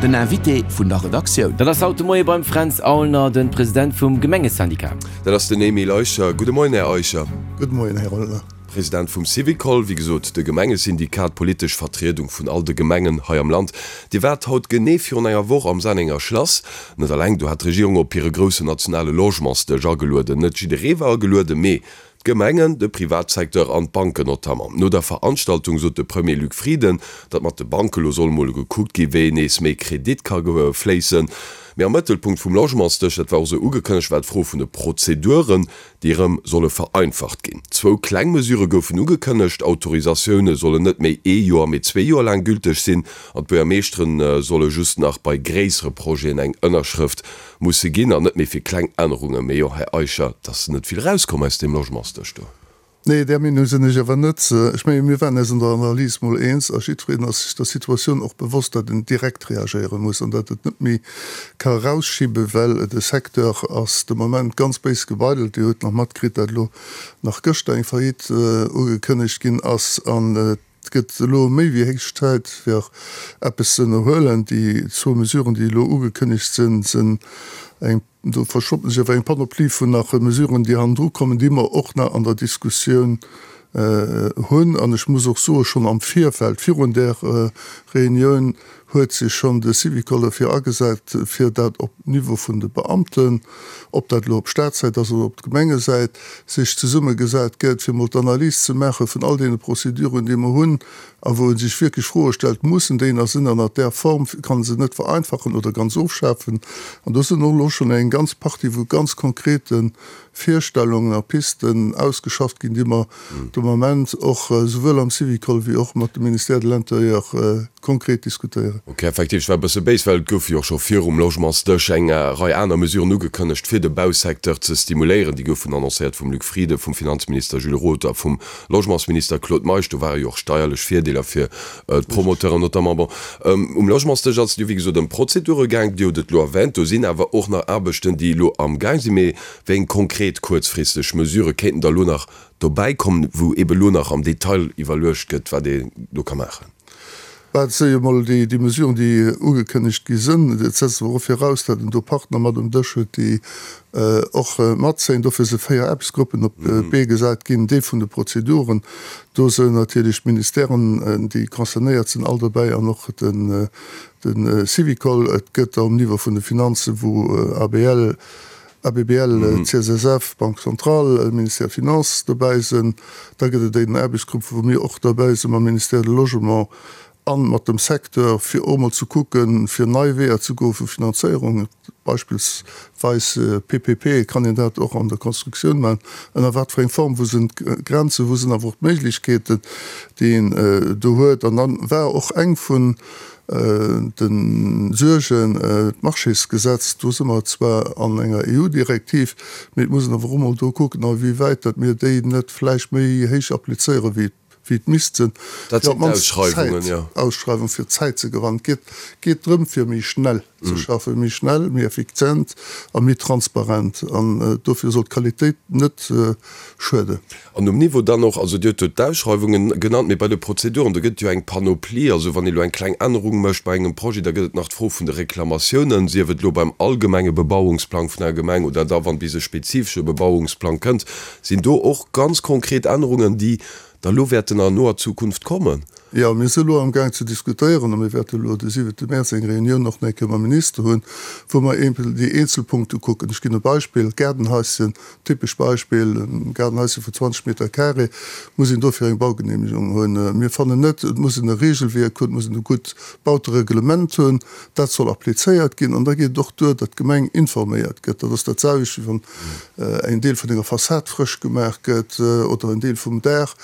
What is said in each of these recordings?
Den Invité vun der Redaktioun. Dat ass haut de Moie beim Fränz Aulner, de President vum Gemengesyndicat. Dat ass den Emile Eicher. Gudde Moien, Här Eicher. Gudde Moien, Här Aulner. President vum Syvicol, wéi gesot de Gemengesyndikat, d'politesch Vertriedung vun all de Gemengen hei am Land. Dir waart haut genee virun enger Woch am Sennenger Schlass. Net alleng do hat d'Regierung op hire groussen nationale Logementsdësch agelueden. Net jidderee war agelueden, mee d'Gemengen, de Privatsecteur an d'Banken notamment. No der Veranstaltung sot de Premier Luc Frieden, datt mat de Banke lo soll mol gekuckt gi wéi nees méi Kredit ka fléissen. Mee am Mëttelpunkt vum Logementsdësch, dat war och esou ugekënnegt, war d'Fro vun de Prozeduren. déi erëm solle vereinfacht ginn. Zwou kleng Mesure goufen ugekënnegt, Autorisatioune sollen net méi ee Joer, mee zwee Joer laang gülteg sinn an d'Buergermeeschtere solle just nach bei gréissere Projeten eng Ënnerschrëft musse ginn an net méi fir kleng Ännerungen. Mee jo, Här Eicher, et ass net vill erauskomm aus deem Logementsdësch do. Nee, där Meenung sinn ech awer net. Ech menge mir waren eis an der Analys mol eens a jiddwereen ass sech der Situatioun och bewosst, datt een direkt reagéiere muss an datt et net méi ka erausschiben, well de Secteur ass de Moment ganz béis gebeidelt. Dir hutt nach matkritt, datt elo nach gëschter eng Faillite ugekënnegt ginn ass an et gëtt elo méi wéi héich Zäit fir eppes ze ënnerhuelen. Déi zwou Mesuren, déi elo ugekënnegt sinn, sinn eng, do verstoppen sech awer eng Panoplie vun nach Mesuren, déi hannendru kommen, déi mer och nach an der Diskussioun hunn. An ech muss och soen, schonn am Virfeld, virun där Reunioun, huet sech schonn de Syvicol derfir agesat, fir dat op Niveau vun de Beamten, ob dat elo op Staatssäit ass oder op Gemengesäit, sech zesummegesat gëtt, fir emol d'Analys ze maache vun all deene Prozeduren, déi mer hunn, a wou e sech wierklech Froe stellt, Mussen déi nach sinn an a där Form, kann e se net vereinfachen oder ganz ofschafen? An do sinn och elo schonn eng ganz Partie vu ganz konkrete Virstellungen a Pisten ausgeschafft ginn, déi mer de Moment och souwuel am Syvicol wéi och mat dem Ministère de l'Intérieur konkret diskutéieren. Ok, effektiv, ech war e bësse béis, well et goufe jo och scho virum Logementsdësch eng Rei aner Mesuren ugekënnegt, fir de Bausecteur ze stimuléieren. Déi goufen annoncéiert vum Luc Frieden, vum Finanzminister Jules Roth a vum Logementsminister Claude Meisch. Do ware jo och steierlech Virdeeler fir d'Promoteuren notamment. Bon, um Logementsdësch ass et jo wéi gesot ëm Prozedure gaang, Dir hutt et elo erwänt. Do sinn awer och nach Aarbechten, déi elo amgaang sinn. Mee wéi eng konkret kuerzfristeg Mesurë kéinten da elo nach dobäi kommen, wou eebe elo nach am Detail iwwerluecht gëtt, wat een do ka maachen? Bah, et si jo emol déi Mesuren, déi ugekënnegt gi sinn. Et setzt awer och viraus, datt een do Partner mat um Dësch huet, déi och matzéien. Dofir si 4 Aarbechtsgruppen op d'Bee gesat ginn. Dee vun de Prozeduren, do sinn natierlech d'Ministèren, déi concernéiert sinn, all dobäi an och de Syvicol. Et gëtt der um Niveau vun de Finanzen, wou ABL, ABBL, CSSF, Banque centrale, Ministère des Finances dobäi sinn. Da gëtt et en Aarbechtsgrupp, wou mir och derbäi sinn mam Ministère de Logement a mat dem Secteur, fir och emol ze kucken, fir nei Weeër ze goe vu Finanzéierung, beispillsweis PPP, kann een dat och an der Constructioun maachen, ënner wat fir eng Form, wou sinn d'Grenzen, wou sinn awer och d'Méiglechkeeten, déi een do huet. An dann war och eng vun De Suergen, d'Marchésgesetz, do si mer zwar an enger EU-Direktiv, mee et muss een awer och emol do kucken, a wéi wäit datt mir déi net vläicht méi héich applizéieren, wéi et misst sinn, fir op d'mannst Zäit, Ausschreiwung, fir Zäit ze gewannen. Et geet drëm, fir méi schnell ze schaffen, méi schnell, méi effizient a méi transparent. An dofir soll d'Qualitéit net schueden. An um Niveau dann och, also Dir hutt do d'Ausschreiwungen genannt, mee bei de Prozeduren, do gëtt et jo eng Panoplie. Also wann ee elo eng kleng Ännerung mécht bei engem Projet, da gëtt et nach d'Fro vun de Reklamatiounen, sief et elo beim allgemenge Bebauungsplang vun enger Gemeng oder da wann bis e spezifesche Bebauungsplang kënnt. Sinn do och ganz konkret Ännerungen, déi da elo wäerten an noer Zukunft kommen? Jo, mir si elo amgaang ze diskutéieren a mir wäerte elo de siwente Mäerz eng Reunioun och nach eng Kéier mam Minister hunn, wou mer eeben déi eenzel Punkte kucken. Ech ginn e Beispill, Gaardenhaischen, typesch Beispill, e Gaardenhaischen vun 20 Meter carré, muss een dofir eng Baugenehmegung hunn. Mir fannen net, et muss een e Regelwierk hunn, et muss een e gutt Bautereglement hunn, dat soll applizéiert ginn. An da geet et och duer, datt d'Gemeng informéiert gëtt. Dat ass dat selwecht, wéi wann en Deel vun enger Fassad frësch gemaach gëtt oder en Deel vum Daach.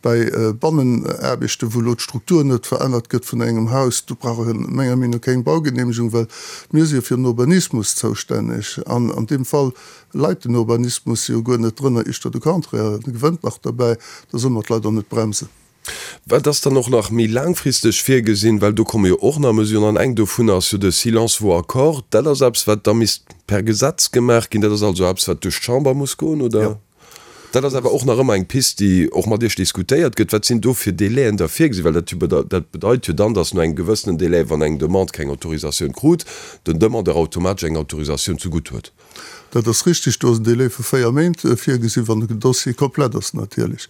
Bei Bannenaarbechten, wou elo d'Struktur net verännert gëtt vun engem Haus, do brauch een menger Meenung no keng Baugenehmegung, well mir si jo fir den Urbanismus zoustänneg an an deem Fall leit den Urbanismus jo guer net drënner, éischter de Contraire, e gewënnt nach derbäi, da solle mer d'Leit och net bremsen. Wat ass dann och nach méi laangfristeg virgesinn, well do komme jo och nach Mesuren an eng dovunner ass jo de Silence vaut accord. Dat ass eppes, wat da misst per Gesetz gemaach ginn. Dat ass also eppes, wat duerch d'Chamber muss goen, oder? Jo. Dat ass awer och nach ëmmer eng Pist, déi och mat Iech diskutéiert gëtt. Wat sinn do fir Délaiën da virgesinn? Well dat jo dat bedeit jo dann, datt no engem gewëssenen Délai, wann eng Demande keng Autorisatioun krut, den Demandeur automatesch eng Autorisatioun zegutt huet. Dat ass richtig. Do ass en Délai vu 4 Méint virgesinn, wann den Dossier komplett ass natierlech.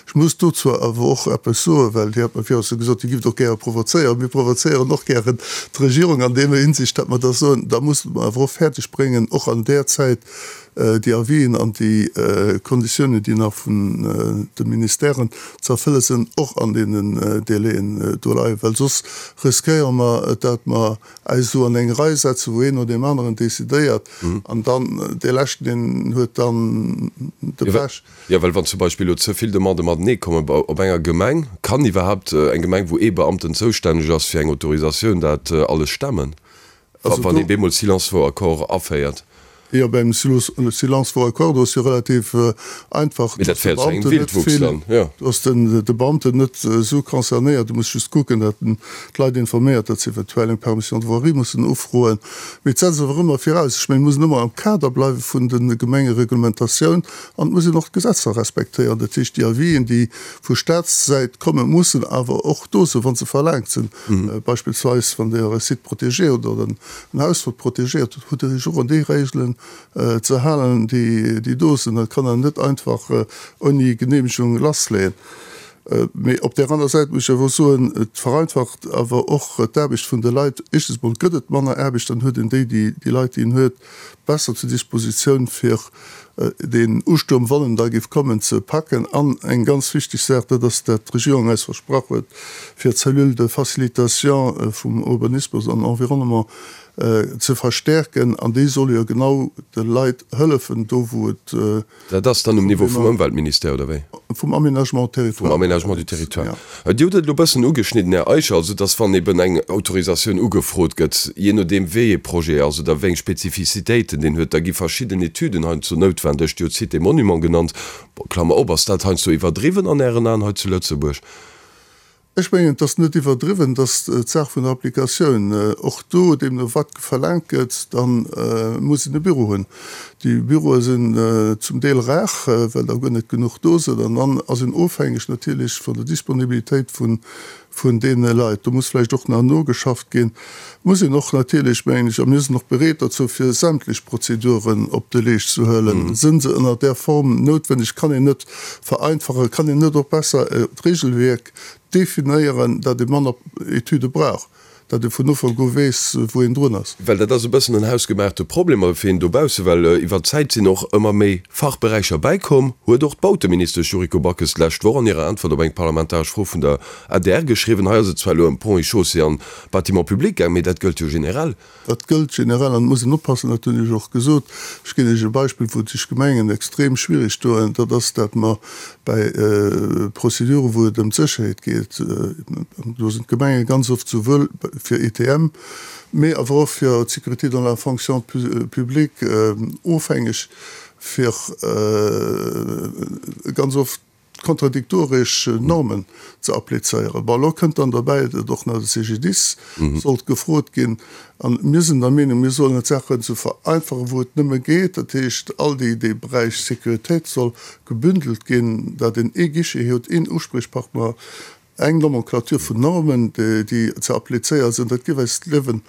Ech muss dozou awer och eppes soen, well Dir hat mer virun gesot, Dir gifft och gäre provozéieren. Mir provozéieren och gären d'Regierung an deemer Hinsicht, datt mer da soen, da musse mer awer och fäerdeg bréngen, och an där Zäit déi Avisen an déi Konditiounen, déi nach vun de Ministèren ze erfëlle sinn, och an deenen Délaiën do leien, well soss riskéiere mer, datt mer eis esou an eng Rei setzen, wou een no deem aneren decidéiert an dann dee leschten, deen huet dann de Pech. Jo, well wann zum Beispill elo ze vill Demandë matenee kommen op enger Gemeng, kann iwwerhaapt eng Gemeng, wou ee Beamten zoustänneg ass fir eng Autorisatioun, dat alles stemmen, wann ee bemol Silence vaut accord aféiert? Jo, beim Silence vaut accord, do ass jo relativ einfach, Mee dat féiert zu engem Wildwuchs dann, jo. Do ass de Beamten net esou concernéiert. E muss just kucken, datt en d'Leit informéiert, datt se eventuell eng Permission de voirie mussen ufroen. Mee et setzt awer ëmmer viraus, ech mengen, et muss een ëmmer am Kader bleiwe vun de Gemengereglementatioun an et muss een och d'Gesetzer respektéieren. Dat heescht, déi Avisen, déi vu Staatssäit kommen, mussen awer och do sinn, wa se verlaangt sinn. Beispillsweis, wann Dir e Site protégé hutt oder en Haus, wat protegéiert hutt, hutt Der Iech och un déi Regelen ze halen, déi do sinn. Dat kann een net einfach ouni Geneemegung lassleeën. Mee op där aner Säit muss ech awer och soen, et vereinfacht awer och d'Aarbecht vun de Leit. Éischtens emol gëtt et manner Aarbecht, dann huet een déi, déi Leit, déi een huet, besser zur Dispositioun, fir deen Ustuerm, wann en da géif kommen, ze packen. An eng ganz wichteg Saach, dat ass, dat d'Regierung eis versprach huet, fir d'Cellule de facilitation vum Urbanismus an Environnement ze verstärken. An déi soll jo genau de Leit hëllefen, do wou et. Dat ass dann um Niveau vum Ëmweltministère, oder wéi? Vum Aménagement territoire. Vum Aménagement du territoire. Dir hutt et elo e bëssen ugeschnidden, Här Eicher, also dass wann eben eng Autorisatioun ugefrot gëtt, jee nodeem wéi ee Projet ass oder wéi eng Spezifizitéiten deen huet, da gi verschidden Etüden heiansdo noutwendeg. Dir hutt Cité Monument genannt. Klammer op, ass dat heiansdo iwwerdriwwen an Ären Aen hei zu Lëtzebuerg? Ech mengen, et ass net iwwerdriwwen, et ass d'Saach vun der Applikatioun. Och do, deemno wat verlaangt gëtt, da muss een e Büro hunn. Déi Büroe sinn zum Deel rar, well der guer net genuch do sinn. An dann ass een ofhängeg natierlech vun der Disponibilitéit vun deene Leit. Do muss vläicht och nach nogeschafft ginn. Muss een och natierlech, mengen ech, a mir sinn och bereet dozou, fir sämtlech Prozeduren op de Leescht ze huelen, sinn se ënner där Form noutwenneg, kann een net vereinfachen, kann een net och besser d'Regelwierk definéieren, dat ee manner Etüde brauch, dat ee vun Ufank u weess, wou een drun ass. Well dat ass e bëssen en hausgemaachte Problem, awer fir een dobausse, well iwwer d'Zäit sinn och ëmmer méi Fachberäicher bäikomm, huet och d'Bauteministesch Yuriko Backes d'lescht Woch an hirer Äntwert op eng parlamentaresch Fro vun der adr geschriwwen. Hei ass et zwar elo ëm Ponts et Chaussées an Bâtiments publics gaang, mee dat gëllt jo generell. Dat gëllt generell an et muss een oppassen, dat hunn ech och gesot. Ech ginn Iech e Beispill, wou sech Gemengen extrem schwierig doen, dat ass, dat mer bäi Prozeduren, wou et ëm d'Sécherheet geet, do sinn d'Gemenge ganz oft souwuel fir ETM, mee awer och fir d'Sécurité dans la fonction publique ofhängeg, fir ganz oft kontradiktoresch Normen ze applizéieren. Bon, elo kënnt dann derbäi, datt och nach de CGDIS sollt gefrot ginn. A mir sinn der Meenung, mir sollen d'Saachen esou vereinfachen, wou et nëmme geet. Dat heescht, all déi, dee Beräich Sécuritéit soll gebündelt ginn, datt een ee Guichet huet, een Usprichpartner, Eng Nomenclature vun Normen, déi ze applizéiere sinn, dat géif eis d'Liewen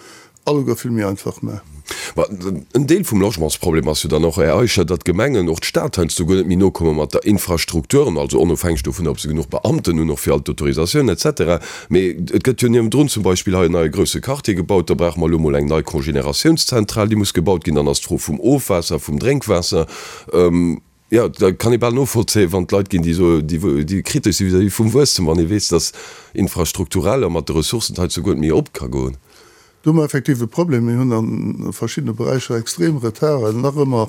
alleguer vill méi einfach maachen. Ma en Deel vum Logementsproblem ass jo dann och, Här Eicher, datt d'Gemengen, och d'Stad heiansdo guer net méi nokomme mat der Infrastruktur, also onofhängeg dovunner, ob se genuch Beamten hunn, och fir all d'Autorisatiounen et cetera. Mee et gëtt jo niewendrun zum Beispill hei en neie grousse Quartier gebaut, da brauche mer elo mol eng nei Congénératiounszentral, déi muss gebaut ginn, dann ass d'Fro vum Ofwaasser, vum Drénkwaasser. Jo, da kann ee bal novollzéien, wann et Leit ginn, déi soen, déi kritesch si vis-à-vis vum Wuesstem, wann ee weess, datt infrastrukturell a mat de Ressourcen et hei zu guer net méi op ka goen. Do hu mer effektiv e Problem. Mir hunn a verschiddene Beräicher extrem Retarden, nach ëmmer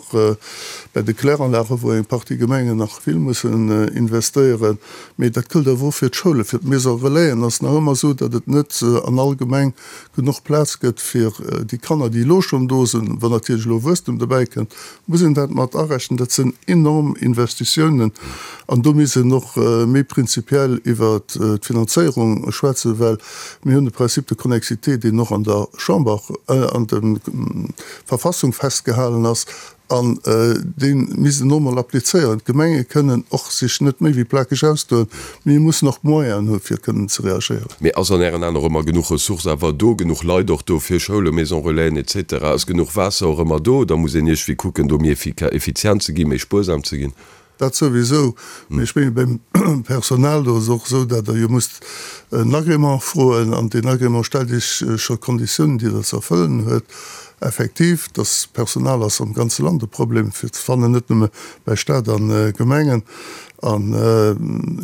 bei de Kläranlagen, wou eng Partie Gemengen nach vill mussen investéieren. Mee dat gëllt awer och fir d'Schoulen, fir d'Maisons relaisen ass nach ëmmer esou, datt et net an all Gemeng genuch Plaz gëtt fir déi Kanner, déi elo schonn do sinn. Wann natierlech elo Wuesstem dobäi kënnt, muss een dat mat arechnen. Dat sinn enorm Investitiounen an do misst een och méi prinzipiell iwwert d'Finanzéierung schwätzen, well mir hunn de Principe de connexité, deen och an der. der Chamber, an der Verfassung festgehalen ass, an dee misst een och emol applizéieren. D'Gemenge kënnen och sech net méi wéi plakeg ausdoen, mee mussen och d'Moyenen hu fir kënnen ze reagéieren. Mee ass an Ären Aen och ëmmer genuch Ressource awer do, genuch Leit och do fir Schoulen, Maisons Relaisen et cetera? Ass genuch Waasser och ëmmer do oder muss een iergwéi kucken do méi effizient ze ginn, méi spuersam ze ginn? Dat souwisou, mee ech mengen beim Personal, do ass et och esou, datt Der jo musst en Agrément froen an deen Agrément stellt Iech scho Konditiounen, déi Der ze erfëllen huet. Effektiv, dass Personal ass am ganze Land e Problem fir ze fannen, net nëmme bei Stat a Gemengen. An,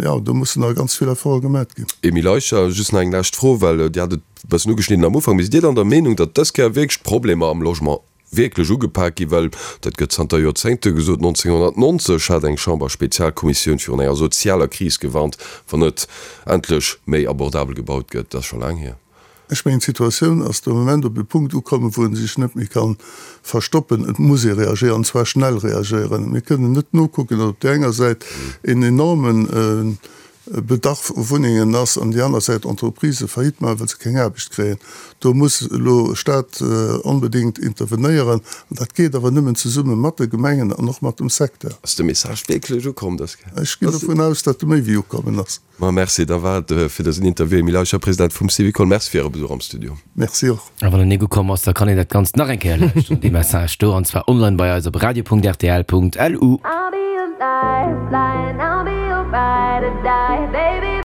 jo, do mussen nach ganz vill Efforte gemat ginn. Emile Eicher, just nach eng lescht Fro, well Dir hat et e bëssen ugeschnidden am Ufank. Mee sidd Dir dann der Meenung, datt dës Kéier wierklech d'Problemer am Logement wierklech ugepak ginn, well dat gëtt zanter Joerzéngte gesot, 1990 hat eng Chamberspezialkommissioun virun enger sozialer Kris gewarnt, wann net endlech méi abordabel gebaut gëtt. Dat ass scho laang hier. Ech mengen, d'Situatioun ass de Moment op e Punkt ukommen, wou ee sech net méi ka verstoppen. Et muss ee reagéieren, an zwar schnell reagéieren. Mir kënnen net nokucken, datt op där enger Säit een enormen Bedarf u Wunnengen ass an déi aner Säit Entreprisë Faillite maachen, well se keng Aarbecht kréien. Do muss elo Staat onbedéngt intervenéieren. An dat geet awer nëmmen zesumme mat de Gemengen an och mat dem Secteur. Ass de Message wierklech ukomm dës Kéier? Ech ginn dovun aus, datt e méi wéi ukommen ass. Ma merci, da war et fir dësen Interview. Emile Eicher, President vum Syvicol, merci fir Äre Besuch am Studio. Merci och. A wann en nik ukomm ass, da kann een dat Ganzt nach eng Kéier lauschteren, dee Message do, an zwar online bei eis op radio.rtl.lu.